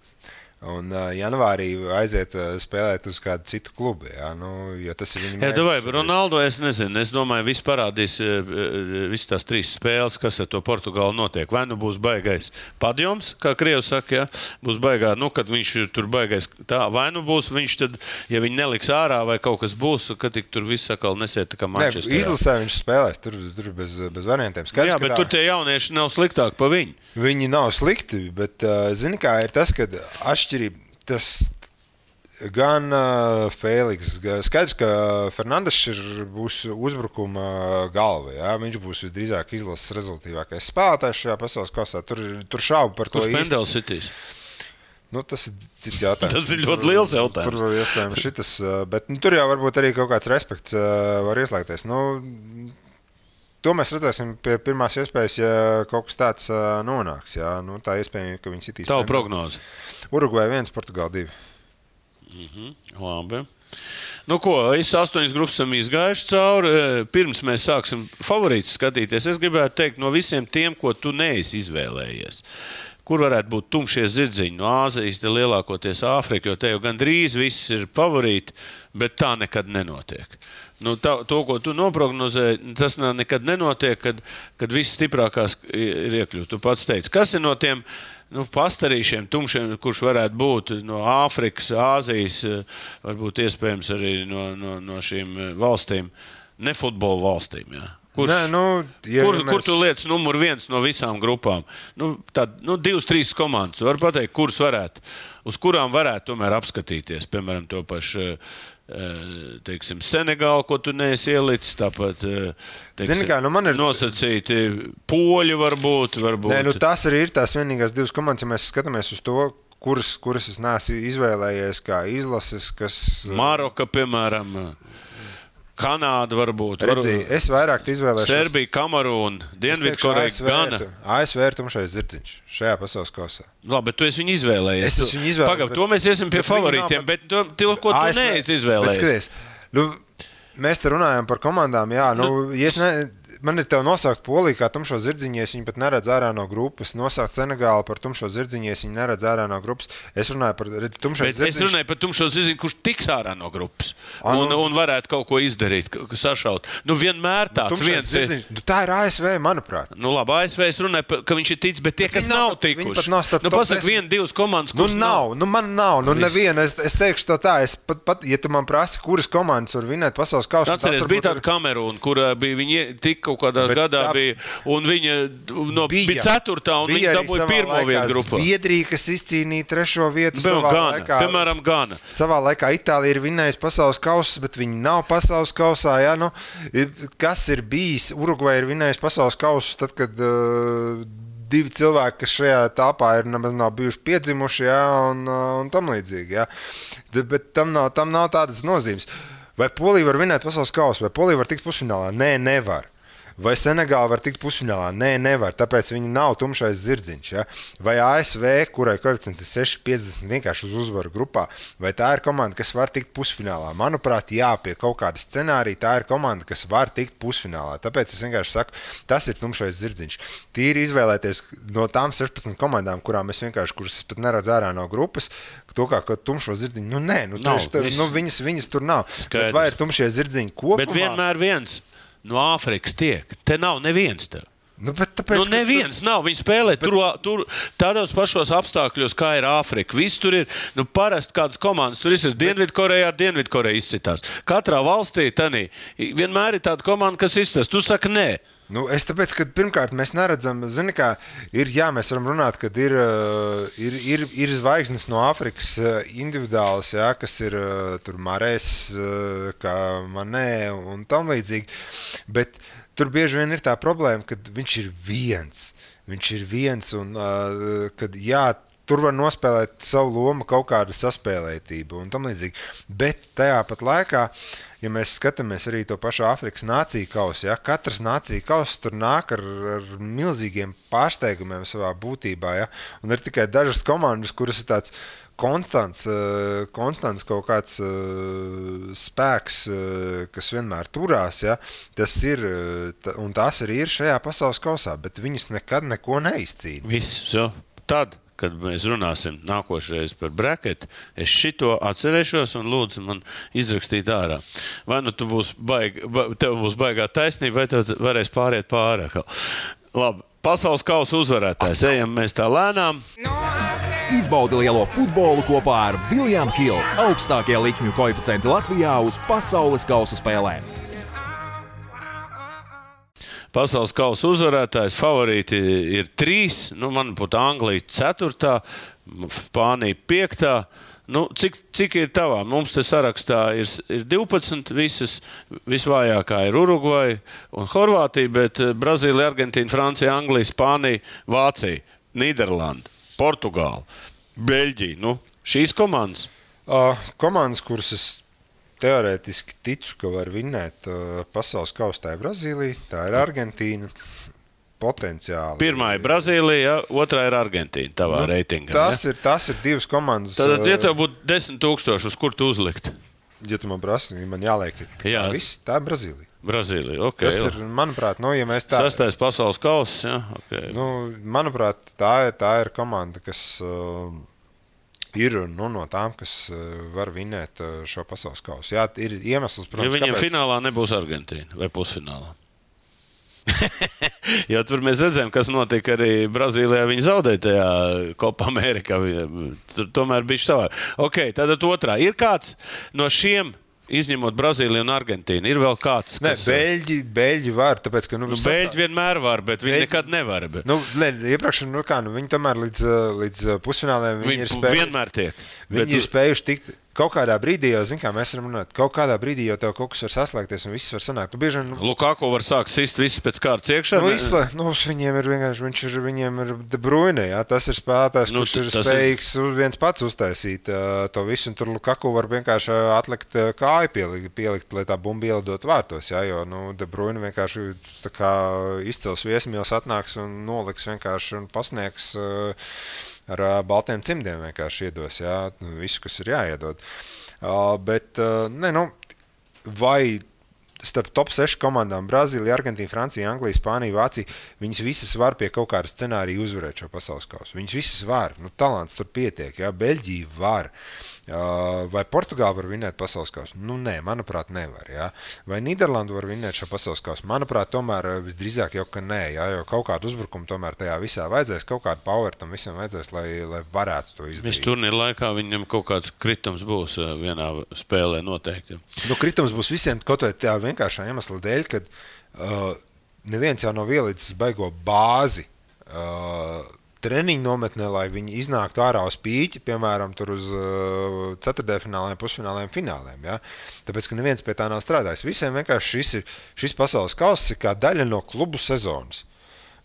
Un janvārī aiziet spēlēt uz kādu citu klubu. Jā, nu, ja tas ir viņa mērķis. Jā, Ronaldo, es nezinu. Es domāju, viss parādīs visas tās 3 spēles, kas ar to Portugālu notiek. Vai nu būs baigais padjoms, kā Krievs saka, jā, būs baigā, nu, kad viņš tur baigais tā, vai nu būs viņš tad, ja viņi neliks ārā vai kaut kas būs, kad tik tur viss sakal nesiet tā kā Manchester. Izlasē viņš spēlēs, tur bez variantiem. Skaidrs, jā, bet tur tie jaunieši nav sliktāk pa viņu. Viņi nav slikti, bet zini kā ir tas, kad atšķirība, tas gan Fēliks, skaidrs, ka Fernandes būs uzbrukuma galva, jā, viņš būs visdrīzāk izlases rezultātīvākais spēlētājs šajā pasaules kausā, tur šaubu par to īsti. Kurš pendels sitīs? Nu, tas ir cits jautājums. Tas ir ļoti liels jautājums. Tur var iespējams šitas, bet tur jau varbūt arī kaut kāds respekts var ieslēgties. Nu, to mēs redzēsim pie pirmās iespējas, ja kaut kas tāds nonāks. Jā. Nu, tā iespējams, ka viņi sitīs. Tavu prognozi? Urugvai 1, Portugāla 2. Labi. Nu ko, 8 grupas esam izgājuši cauri. Pirms mēs sāksim favorītus skatīties, es gribētu teikt no visiem tiem, ko tu neesi izvēlējies. Kur varētu būt tumšie zirdziņi no Āzijas, te lielākoties Āfrika, jo te jau gandrīz viss ir favorīti, bet tā nekad nenotiek. Nu, to, ko tu noprognozēji, tas nekad nenotiek, kad viss stiprākās ir iekļūt. Tu pats teici, kas ir no tiem pastarīšiem, tumšiem, kurš varētu būt no Āfrikas, Āzijas, varbūt iespējams arī no šīm valstīm, ne futbola valstīm, jā. Kur tu lietas numur 1 no visām grupām? 2-3 komandas. Var pateikt, kuras varētu, uz kurām varētu tomēr apskatīties. Piemēram, to pašu, teiksim, Senegālu, ko tu neesi ielicis, tāpat, teiksim, nosacīti poļi varbūt. Nē, tās arī ir tās vienīgās 2 komandas, ja mēs skatāmies uz to, kuras es neesmu izvēlējies kā izlases, kas... Maroka, piemēram... Kanāda varbūt. Es vairāk izvēlēšos. Serbija, Kamerūna, Dienvidkoreja, Gana. ASV ir tumšais zirdziņš šajā pasaules kausā. Labi, bet tu esi viņu izvēlējies. Es esmu viņu izvēlējies. Pagaid, to mēs iesim pie favorītiem, bet to, ko tu neesi izvēlējies. Bet skaties, mēs te runājam par komandām, jā, man ir tev nosaukt Poliju kā tumšo zirdziņu, es viņu pat neredzu ārā no grupas. Nosaukt Senegālu par tumšo zirdziņu, es viņu neredzu ārā no grupas. Es runāju par tumšo zirdziņu. Es runāju par tumšo zirdziņu, kurš tiks ārā no grupas un varētu kaut ko izdarīt, sašaut. Vienmēr tāds viens ir. Tā ir ASV, manuprāt. Labi, ASV es runāju, ka viņš ir ticis, bet tie, kas nav tikuši. Pasaka 1-2 komandas, kuras nav. Man nav. Neviena. Es teikšu to tā. Ja tu man prasi, kuras komandas var vinēt pasaules kausu. Atceries, bija tāda Kamerūna, kur viņi tika kaut kādā gadā bija, un viņa bija 4. un viņa dabūja 1. vietu grupā. Zviedrija, kas izcīnīja 3. vietu savā laikā. Piemēram, Gana. Savā laikā Itālija ir vinējusi pasaules kausas, bet viņi nav pasaules kausā. Jā, kas ir bijis? Urugvai ir vinējusi pasaules kausas, tad, kad 2 cilvēki, kas šajā tāpā ir nemaz nav bijuši piedzimuši, jā, un tam līdzīgi. Jā. Bet tam nav tādas nozīmes. Vai Polija var vinēt pasaules kausu? Vai Polija var tikt pusfinālā? Nē, nevar. Vai Senegāla var tikt pusfinālā? Nē, nevar, tāpēc viņi nav tumšais zirdziņš. Ja? Vai ASV, kurai koeficients ir 6,50 vienkārši uz uzvaru grupā, vai tā ir komanda, kas var tikt pusfinālā? Manuprāt, jā, pie kaut kāda scenārija tā ir komanda, kas var tikt pusfinālā. Tāpēc es vienkārši saku, tas ir tumšais zirdziņš. Tīri izvēlēties no tām 16 komandām, kuras es pat neredzu ārā no grupas, to kā tumšo zirdziņu. Viņas tur nav. Bet vai ir tumšie zirdziņi kopumā? Bet vienmēr viens. No Āfrikas tiek. Te nav neviens tev. Neviens nav. Viņi spēlē tur tādos pašos apstākļos, kā ir Āfrika. Viss tur ir. Parasti kādas komandas tur ir. Dienvidkoreja izcitās. Katrā valstī vienmēr ir tāda komanda, kas izcitās. Tu saki, nē. Nu, es tāpēc, ka pirmkārt mēs neredzam, zini, kā mēs varam runāt, kad ir zvaigznes no Āfrikas individuāls, jā, kas ir tur Marēs, kā Manē un tam līdzīgi, bet tur bieži vien ir tā problēma, kad viņš ir viens un kad tur var nospēlēt savu lomu kaut kādu saspēlētību un tam līdzīgi, bet tajā pat laikā, ja mēs skatāmies arī to pašu Āfrikas nāciju kausu, ja, katrs nāciju kauss tur nāk ar milzīgiem pārsteigumiem savā būtībā, ja, un ir tikai dažas komandas, kuras ir tāds konstants kaut kāds spēks, kas vienmēr turās, ja, tas ir, un tās arī ir šajā pasaules kausā, bet viņas nekad neko neizcīna. Viss, tad. Kad mēs runāsim nākošreiz par braketu, es šito atcerēšos un lūdzu man izrakstīt ārā. Vai nu tev būs baigā taisnība, vai tev varēs pāriet pāri. Labi, pasaules kausa uzvarētājs. Ejam mēs tā lēnām. Izbaudi lielo futbolu kopā ar William Hill. Augstākie likmju koeficienti Latvijā uz pasaules kausa spēlēm. Pasaules kausa uzvarētājs, favorīti ir 3, manuprāt, Anglija 4, Spānija 5. Cik ir tavā? Mums te sarakstā ir 12 visas, visvājākā ir Urugvaja un Horvātija, bet Brazīlija, Argentīna, Francija, Anglija, Spānija, Vācija, Nīderlanda, Portugāla, Beļģija. Šīs komandas? Komandas, kuras es teorētiski ticu, ka var vinnēt pasaules kausu, tā ir Brazīlija, tā ir Argentīna, potenciāli. Pirmā ir Brazīlija, otrā ir Argentīna, tavā reitingā. Tas ir 2 komandas. Tad, ja tev būtu 10 000, uz kur tu uzlikt? Ja tu man prasi, man jāliek, tā ir Brazīlija. Brazīlija, ok. Tas ir, manuprāt, ja mēs tā... 6. pasaules kauss, jā, ok. Manuprāt, tā ir komanda, kas... ir no tām, kas var vinnēt šo pasaules kausu. Jā, ir iemesls, protams, ja viņiem finālā nebūs Argentīna vai pusfinālā. Jo tur mēs redzējām, kas notika arī Brazīlijā. Viņi zaudēja tajā Copa Amerikā. Tur tomēr bija savā. Ok, tātad otrā. Ir kāds no šiem, izņemot Brazīliju un Argentīnu, ir vēl kāds, kas... Beļģi var, tāpēc, ka... Beļģi vienmēr var, bet viņi nekad nevar. Bet... iepriekš, viņi tomēr līdz pusfināliem viņi ir spējuši... Vienmēr tiek. Viņi ir spējuši tikt... Kaut kādā brīdī jau, zin kā, mēs varam runāt, kaut kādā brīdī jau tev kaut kas var saslēgties un viss var sanākt. Lukaku var sākt sist viss pēc kārtas iekšā? Viņiem ir vienkārši, viņiem ir De Bruyne, jā, tas ir spēlētājs, kurš ir spējīgs viens pats uztaisīt to visu, un tur Lukaku var vienkārši atlikt kāju pielikt, lai tā bumba ielidot vārtos, jā, jo, De Bruyne vienkārši tā kā izcels viesmīls atnāks un noliks vienkārši un pasniegs ar baltiem cimdiem vienkārši iedos, jā, visu, kas ir jāiedod. Bet, vai starp top 6 komandām Brazīlija, Argentīna, Francija, Anglija, Spānija, Vācija, viņas visas var pie kaut kāda scenārija uzvarēt šo pasaules kausu. Viņas visas var, talants tur pietiek, jā, Beļģija var. Vai Portugāla var vinnēt pasaules kausu? Nē, manuprāt, nevar, jā. Vai Nīderlanda var vinnēt šo pasaules kausu? Manuprāt, tomēr visdrīzāk jau, ka nē, jā, jo kaut kādu uzbrukumu tomēr tajā visā vajadzēs, kaut kādu power tam visam vajadzēs, lai varētu to izdarīt. Viss turnīra laikā viņam kaut kāds kritums būs vienā spēlē noteikti. Kritums būs visiem kaut vai tā vienkāršā iemesla dēļ, kad neviens jau nav ielicis baigo bāzi treniņu nometnē, lai viņi iznāktu ārā uz pīķi, piemēram, tur uz ceturtdaļfināliem, pusfināliem, fināliem. Ja? Tāpēc, ka neviens pie tā nav strādājis. Visiem vienkārši šis pasaules kauss ir kā daļa no klubu sezonas.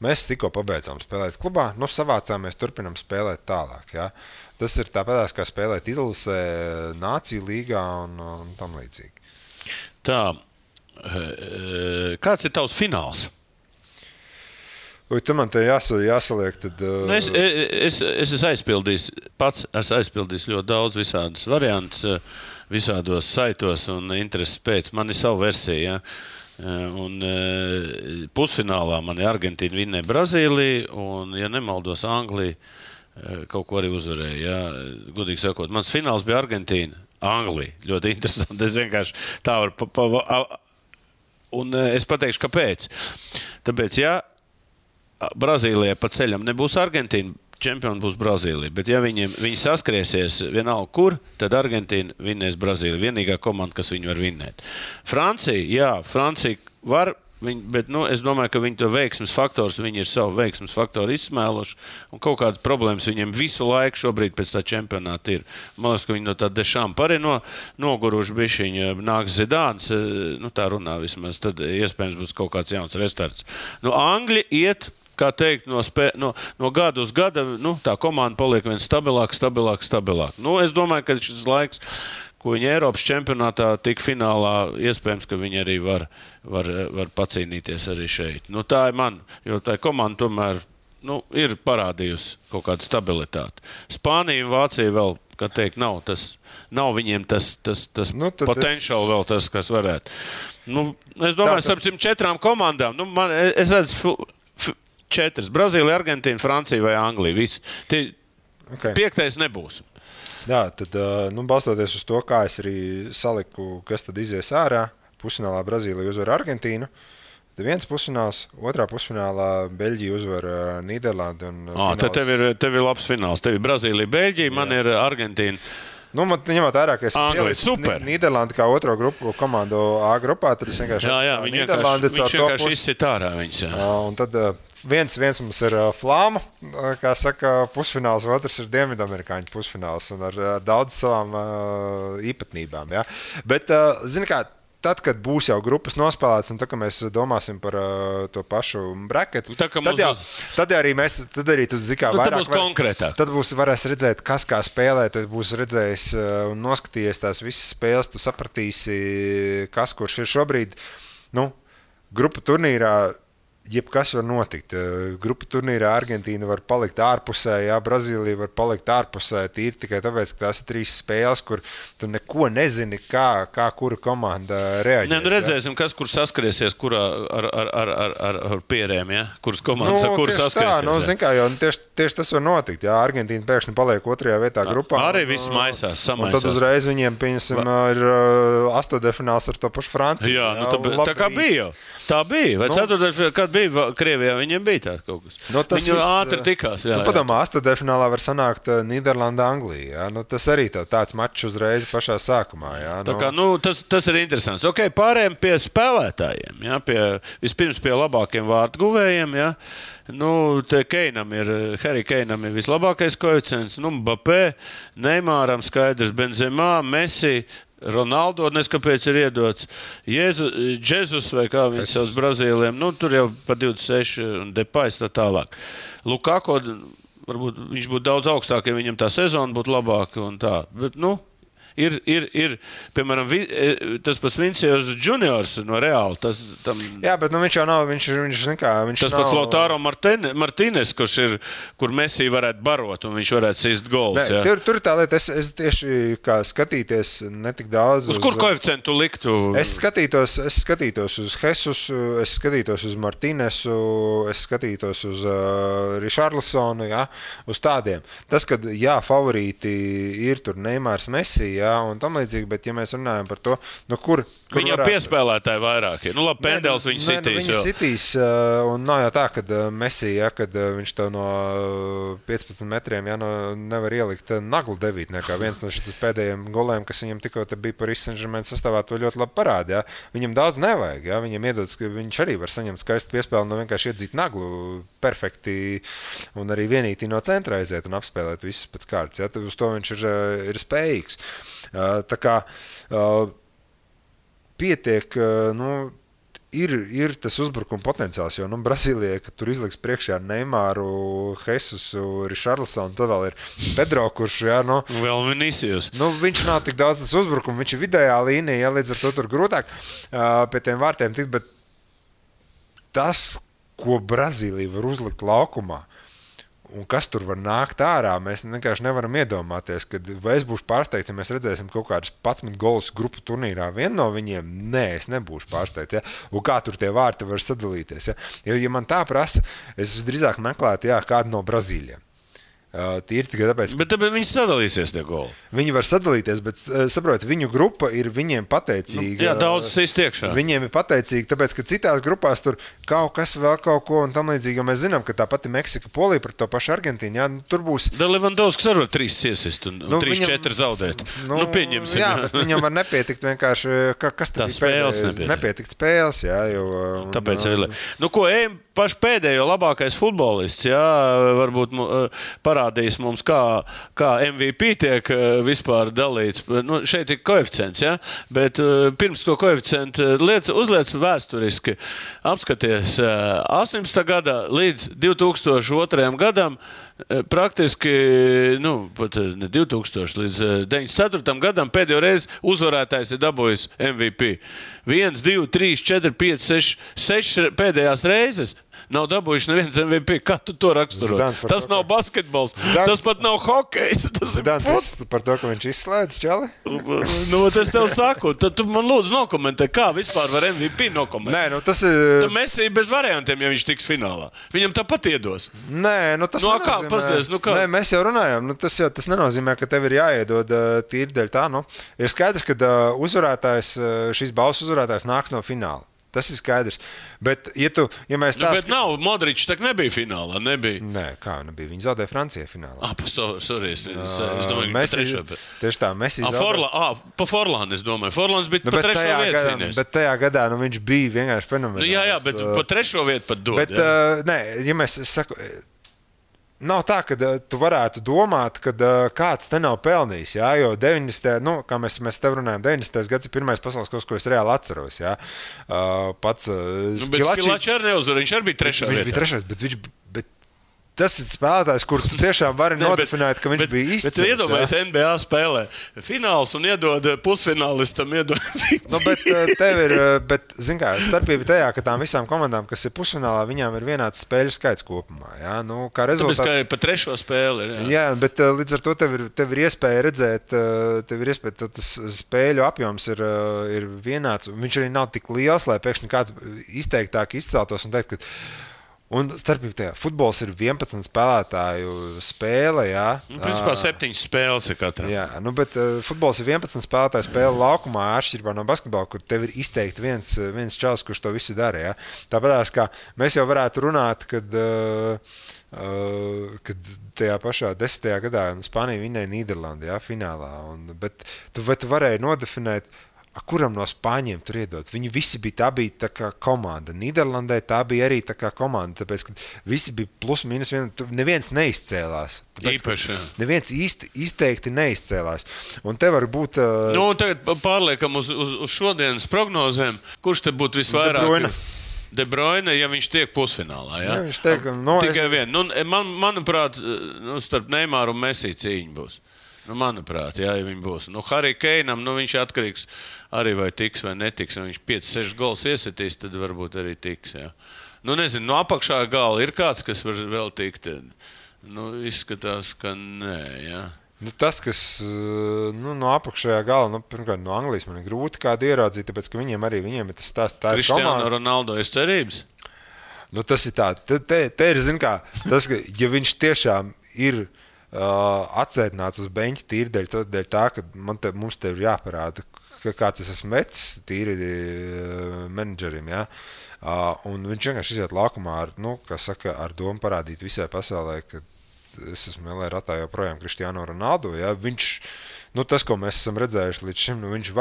Mēs tikko pabeidzām spēlēt klubā, savācāmies, turpinam spēlēt tālāk. Ja? Tas ir tāpēc, kā spēlēt izlasē, nāciju līgā un tam līdzīgi. Tā, kāds ir tavs fināls? Tu man te jāsaliek, tad... Es esmu aizpildījis ļoti daudz visādas variantus, visādos saitos un intereses pēc. Man ir sava versija, ja? Un pusfinālā man ir Argentīna vinnēja Brazīliju, un, ja nemaldos, Anglija kaut ko arī uzvarēja. Ja? Gudīgi sakot, mans fināls bija Argentīna, Anglija. Ļoti interesanti. Es vienkārši tā varu... Un es pateikšu, kāpēc. Tāpēc, ja Brazīlijai pa ceļam nebūs Argentīna, čempioni būs Brazīlija. Bet ja viņi saskriesies vienalga kur, tad Argentīna vinnēs Brazīliju. Vienīgā komanda, kas viņu var vinnēt. Francija var Bet es domāju, ka viņi to veiksmes faktors, viņi ir savu veiksmes faktoru izsmēluši, un kaut kādas problēmas viņiem visu laiku šobrīd pēc tā čempionāta ir. Man liekas, ka viņi no tā Dešampa arī noguruši bišķiņi, nāks Zidāns, tā runā vismaz, tad iespējams būs kaut kāds jauns restarts. Angļi iet, kā teikt, no gada uz gada, tā komanda paliek vien stabilāk. Es domāju, ka šis laiks, ko viņi Eiropas čempionātā tik finālā, iespējams, ka viņi arī var pacīnīties arī šeit. Tā ir man, jo tā komanda tomēr ir parādījusi kaut kādu stabilitāti. Spānija un Vācija vēl, kā teikt, nav viņiem tas potenciāli vēl tas, kas varētu. Es domāju, starp 4 komandām, es redzu 4. Brazīlija, Argentīna, Francija vai Anglija. Visi. Okay. 5. nebūs. Jā, tad balstoties uz to, kā es arī saliku, kas tad izies ārā, pusfinālā Brazīlija uzvar Argentīnu, tad viens pusfināls, otrā pusfinālā Beļģija uzvar Nīderlandi. Tad tev ir labs fināls. Tev ir Brazīlija, Beļģija, man ir Argentīna. Man ņemot vērā, ka es ielicu Nīderlandi kā otro grupu komandu A grupā, tad es vienkārši... Jā, viņš vienkārši izsit ārā viņus. Un tad viens mums ir flāma, kā saka, pusfināls, otrs ir dienvidamerikāņu pusfināls un ar daudz savām īpatnībām. Ja? Bet, zini kā, tad, kad būs jau grupas nospēlētas un tad, kad mēs domāsim par to pašu braketu, tad arī tu zini, kā vairāk... Tad būs konkrētāk. Tad varēs redzēt, kas kā spēlē, tad būs redzējis un noskatījies tās visas spēles, tu sapratīsi, kas kurš ir šobrīd. Grupu turnīrā jebkas var notikt. Grupu turnīrā Argentīna var palikt ārpusē, Brazīlija var palikt ārpusē, tīri tikai tāpēc, ka tās ir 3 spēles, kur tu neko nezini, kā kura komanda reaģēs. Redzēsim, kas kur saskariesies, kurā ar pierēm, ja? Kuras komandas, kur saskariesies. Zin kā, jo tieši tas var notikt. Ja? Argentīna pēkšņi paliek 2. vietā grupā. Arī viss maisās, samaisās. Un tad uzreiz viņiem, pieņemsim, ir 8. ar to pašu Franciju. Jā, tā kā bija. Tā bija. Vai 4. kad bija Krievijā, viņiem bija tā kaut kas. Viņi ātri tikās. Padomā, 8. finālā var sanākt Nīderlanda, Anglija. Tas arī tāds mačs uzreiz pašā sākumā. Tā kā, tas ir interesants. Ok, pārējiem pie spēlētājiem. Ja? Vispirms pie labākiem vārtguvējiem. Ja? Harry Keinam ir vislabākais koeficients. Mbappé, Neymaram skaidrs, Benzemā, Messi, Ronaldo, kāpēc ir iedots Džezus vai kā viņi savus Brazīliem, tur jau pa 26 un Depais tā tālāk. Lukaku, varbūt viņš būtu daudz augstāk, ja viņam tā sezona būtu labāka un tā, bet ir, piemēram, tas pats Vinicius Juniors no Reāla. Jā, bet viņš jau nav, viņš tas pats Lautaro Martínez, kur Messi varētu barot un viņš varētu sist gols. Tur tā lieta, es tieši kā skatīties netik daudz. Uz kur koeficientu liktu? Es skatītos uz Jesusu, es skatītos uz Martīnesu, es skatītos uz Richarlisonu, uz tādiem. Tas, kad favorīti ir tur Neymars, Messi, un tam līdzīgi, bet ja mēs runājam par to, kur viņam piespēlētāji vairāk ir. Labi, Pendels viņu sitīs. Viņu sitīs, un nav jau tā, kad Messi, kad viņš tev no 15 metriem nevar ielikt naglu devītniekā. Viens no šitas pēdējiem goliem, kas viņam tikko bija Paris Saint-Germain sastāvā, to ļoti labi parāda. Viņam daudz nevajag. Viņam iedodas, ka viņš arī var saņemt skaistu piespēli, vienkārši iedzīt naglu perfekti un arī vienītī no centra aiziet un apspēlēt visus pēc kārtas. Tad uz to viņš ir spējīgs. Tā kā pietiek, ir tas uzbrukuma potenciāls, jo Brazīlijai, kad tur izliks priekšā Neymaru, Jesusu, Richarlisonu, tad vēl ir Pedro, kurš, vēl Vinicius. Viņš nav tik daudz tas uzbrukuma, viņš ir vidējā līnija, līdz ar to tur grūtāk pie tiem vārtiem tikt, bet tas, ko Brazīlija var uzlikt laukumā, un kas tur var nākt ārā, mēs vienkārši nevaram iedomāties, kad vai es būšu pārsteigts, ja mēs redzēsim kaut kādus 11 golus grupu turnīrā. Vienu no viņiem, es nebūšu pārsteigts. Ja? Un kā tur tie vārti var sadalīties. Ja man tā prasa, es visdrīzāk meklētu kādu no Brazīļiem. Tīri tikai tāpēc, Bet tāpēc viņi sadalīsies tie goli. viņi var sadalīties, bet saprot, viņu grupa ir viņiem pateicīga. Jā, daudz sist iekšā. Viņiem ir pateicīgi, tāpēc, ka citās grupās tur kaut kas vēl kaut ko un tam līdzīgi, jo mēs zinām, ka tā pati Meksika, Polija par to pašu Argentīnu, jā, tur būs. Da Levandovskis arī 3 iesist un 3-4 zaudēt. Pieņemsim. Jā, bet viņam var nepietikt vienkārši, kas Tā tad spēles nepietikt spēles, jā, jo. Tāpēc ejam paši pēdējo labākais futbolists, jā, varbūt parādīs mums, kā MVP tiek vispār dalīts. Šeit ir koeficients, jā, bet pirms to koeficientu uzliec vēsturiski. Apskaties, 18. gadā līdz 2002. gadam praktiski, pat ne 2000, līdz 94. gadam pēdējo reizi uzvarētājs ir dabūjis MVP. 1, 2, 3, 4, 5, 6 pēdējās reizes nav dabūjuši neviens MVP. Kā tu to raksturo? Tas nav basketbols, tas pat nav hokejs. Tas par to, ka viņš izslēdz čali? Es tev saku, tad tu man lūdzu nokomentē, kā vispār var MVP nokomentēt. Nē, tas ir... Tad Messi bez variantiem, ja viņš tiks finālā. Viņam tāpat iedos. Nē, tas kā, pasties, kā? Nē, mēs jau runājam, tas nenozīmē, ka tev ir jāiedod tīri dēļ tā, Ir skaidrs, ka uzvarētājs, šīs balvas uzvarētājs nāks no fināla. Tas ir skaidrs. Bet, ja mēs tā... Bet nav, Modričs tak nebija finālā, nebija. Nē, kā nebija? Viņi zaudēja Francijai finālā. Sorry, es domāju, ka pa trešo. Tieši tā, Messi zaudēja. Pa Forlānu, es domāju. Forlāns bija pa trešo vietu cīnījies. Bet tajā gadā viņš bija vienkārši fenomenāls. Jā, bet pa trešo vietu pat dod. Bet, nē, ja mēs saku... Nav tā, ka tu varētu domāt, ka kāds te nav pelnījis. Jā, jo 90. Kā mēs tev runājam, 90. gads ir pirmais pasaules kaut kas, ko es reāli atceros. Jā. Pats Skilačs arī neuzvar, viņš arī bija trešā vietā. Viņš bija trešais, bet tas ir spēlētājs, kurš tiešām var nodefinēt, ka viņš bija izcils. Bet iedomājies, NBA spēlē fināls un iedod pusfinālistam. Bet zin kā, starpība tajā, ka tām visām komandām, kas ir pusfinālā, viņām ir vienāds spēļu skaits kopumā. Jā? Kā rezultāts... Tāpēc, kā ir pa trešo spēli. Jā, bet līdz ar to tev ir iespēja redzēt, tas spēļu apjoms ir vienāds. Viņš arī nav tik liels, lai pēkšņi kāds izteiktāk izceltos un teikt, ka un starpībā tajā futbols ir 11 spēlētāju spēle, jā. Principā 7 spēles ir katram. Jā, bet futbols ir 11 spēlētāju spēle laukumā, atšķirībā no basketbola, kur tev ir izteikti viens čals, kurš to visu dara, jā. Tāpēc, kā mēs jau varētu runāt, kad tajā pašā 10. gadā Spānija vinnēja Nīderlandi, jā, finālā. Bet tu varēji nodefinēt, kuram no Spāņiem tur iedot. Viņi visi tā bija tā kā komanda. Nīderlandē tā bija arī tā kā komanda, tāpēc, ka visi bija plus mīnus neviens neizcēlās. Īpaši. Neviens izteikti neizcēlās. Un te var būt... Tagad pārliekam uz šodienas prognozēm, kurš te būtu visvairāk... De Bruyne, ja viņš tiek pusfinālā, jā? Jā, viņš tiek... Tikai vien. Manuprāt, starp Neymaru un Messi cīņa būs. Manuprāt, jā, ja viņi būs. Harry Kanam, viņš atkarīgs arī vai tiks vai netiks. Ja viņš 5-6 gols iesitīs, tad varbūt arī tiks. Jā. Nezinu, no apakšā gala ir kāds, kas var vēl tikt. Izskatās, ka nē, jā. Tas, kas no apakšējā gala, pirmkārt, no Anglijas man ir grūti kādu ieraudzīt, tāpēc, ka viņiem ir tas stāsts. Cristiano Ronaldo ir cerības? Tas ir tā. Te ir, zin kā, tas, ka ja viņš tiešām ir atsēdināts uz beņķa tīri dēļ tā, ka mums te ir jāparāda, ka kāds es esmu metis tīri menedžerim, jā. Un viņš vienkārši iziet laukumā ar domu parādīt visai pasaulē, ka es esmu LA ratā joprojām Cristiano Ronaldo, jā. Viņš, tas, ko mēs esam redzējuši līdz šim, viņš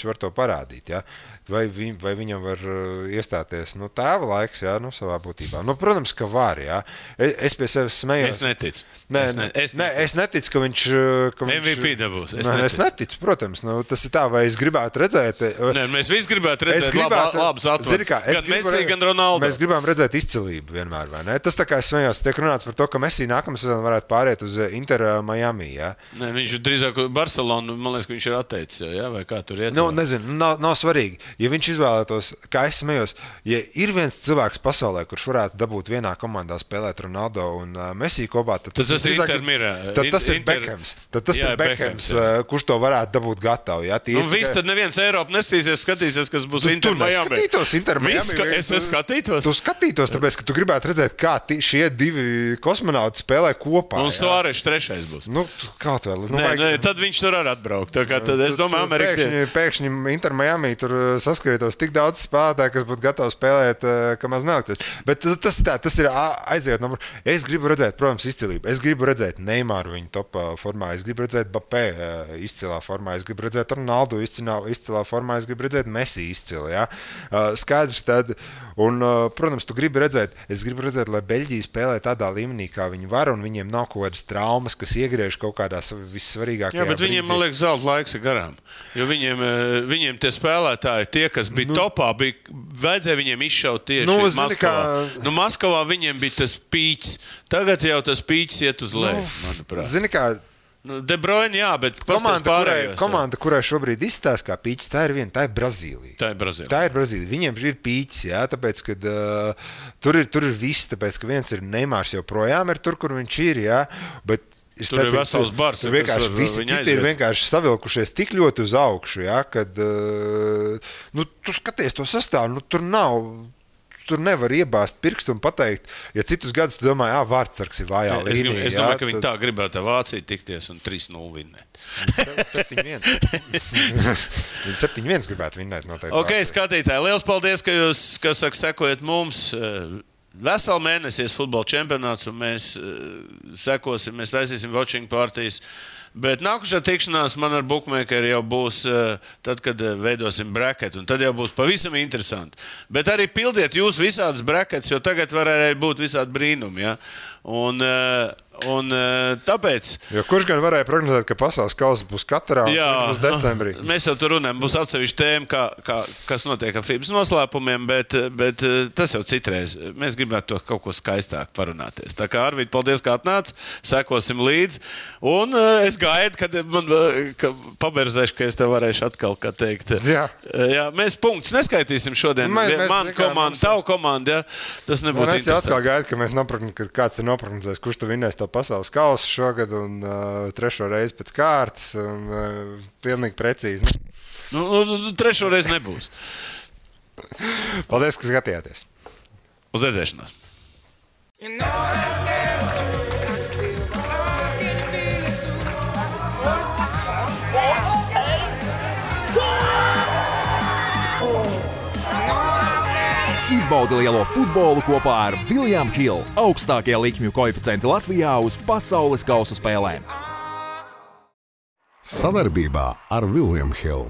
var to parādīt, jā. Vai viņam var iestāties tēva laiks, jā, savā būtībā. Protams, ka var, jā. Es pie sevis smējos. Es neticu. Es neticu, ka viņš... MVP dabūs. Es neticu, protams. Tas ir tā, vai es gribētu redzēt... Mēs visi gribētu redzēt labus atvads. Gan Messi, gan Ronaldo. Mēs gribam redzēt izcilību vienmēr, vai ne? Tas tā kā es smējos, tiek runāts par to, ka Messi nākamā sezona varētu pāriet uz Inter Miami, jā. Viņš drīzāk Barcelonu, man liekas, ka viņš ir atteicis, ja? Vai kā tur iet? Nezinu, nav svarīgi. Ja viņš izvēlētos, kā es smējos, ja ir viens cilvēks pasaulē, kurš varētu dabūt vienā komandā spēlēt Ronaldo un Messi kopā, tad tas ir Beckhams. Tad tas ir Beckhams, kurš to varētu dabūt gatavu. Ja? Viss tad neviens Eiropa skatīsies, kas būs Inter Miami. Es skatītos. Tu skatītos, tāpēc, ka tu gribētu redzēt, kā šie divi kosmonauti spēlē kopā. Un Suāreš trešais būs. Kaut vēl. Tad viņš tur arī atbraukt. Tad es domāju, Amerika... Pēkšņi Inter Miami tur saskrietos tik daudz spēlētāju, kas būtu gatavi spēlēt, ka maz nelikties. Bet tas ir aiziet. Es gribu redzēt, protams, izcilību. Es gribu redzēt Neymaru viņa topā formā. Es gribu redzēt Mbappé izcilā formā. Es gribu redzēt Ronaldo izcilā formā. Es gribu redzēt Messi izcilā. Ja? Skaidrs tad. Un, protams, es gribu redzēt, lai Beļģija spēlē tādā līmenī, kā viņi var, un viņiem nav kaut kādas traumas, kas iegriež kaut kādās vissvarīgākajā brīdī. Jā, bet viņiem, man liekas, zelta laiks ir garām. Jo viņiem tie spēlētāji, tie, kas bija topā, vajadzēja viņiem izšaut tieši Maskavā. Maskavā viņiem bija tas pīķis. Tagad jau tas pīķis iet uz leju, manuprāt. Zini kā... De Bruyne, jā, bet komanda, kurai šobrīd izstāsta kā pīķis, tā ir Brazīlija. Tā ir Brazīlija. Viņiem ir pīķis, jā, tāpēc, ka tur ir viss, tāpēc, ka viens ir Neymārs joprojām ir tur, kur viņš ir, jā, bet tur ir vesels bars. Visi citi ir vienkārši savilkušies tik ļoti uz augšu, jā, kad tu skaties to sastāvu, tur nevar iebāzt pirkstu un pateikt, ja citus gadus tu domāji, Vārtsargs ir vājā līnija. Es domāju, ka viņi tā gribētu ar Vāciju tikties un 3-0 vinnēt. 7-1. Viņi 7-1 gribētu vinnēt noteikti. Ok, skatītāji, liels paldies, ka jūs, sekojat mums. Veselu mēnesi futbola čempionāts un mēs sekosim, mēs taisīsim watching partijas. Bet nākušā tikšanās man ar bookmakeri jau būs tad, kad veidosim bracket, un tad jau būs pavisam interesanti. Bet arī pildiet jūs visādas brackets, jo tagad var arī būt visādi brīnumi, ja? Un tāpēc... Jo kurš gan varēja prognozēt, ka pasaules kausa būs katrā un būs decembrī? Mēs jau tur runājam, būs atsevišķi tēma, kas notiek ar FIBas noslēpumiem, bet tas jau citreiz. Mēs gribētu to kaut ko skaistāk parunāties. Tā kā Arvīd, paldies, ka atnāc, sekosim līdzi. Un es gaidu, ka paberzēšu, ka es tev varēšu atkal, kā teikt. Jā, mēs punktus neskaitīsim šodien. Man komanda, tavu komanda, ja? Tas nebūtu interesanti. Es atkal gaidu, ka mēs kāds ir noprognozējis, kurš tu vinnēs to pasaules kausu šogad un trešo reizi pēc kārtas un pilnīgi precīzi. Trešo reizi nebūs. Paldies, ka skatījāties. Uz redzēšanos. Izbaudi lielo futbolu kopā ar William Hill, augstākie likmju koeficienti Latvijā uz pasaules kausa spēlēm. Savarbībā ar William Hill.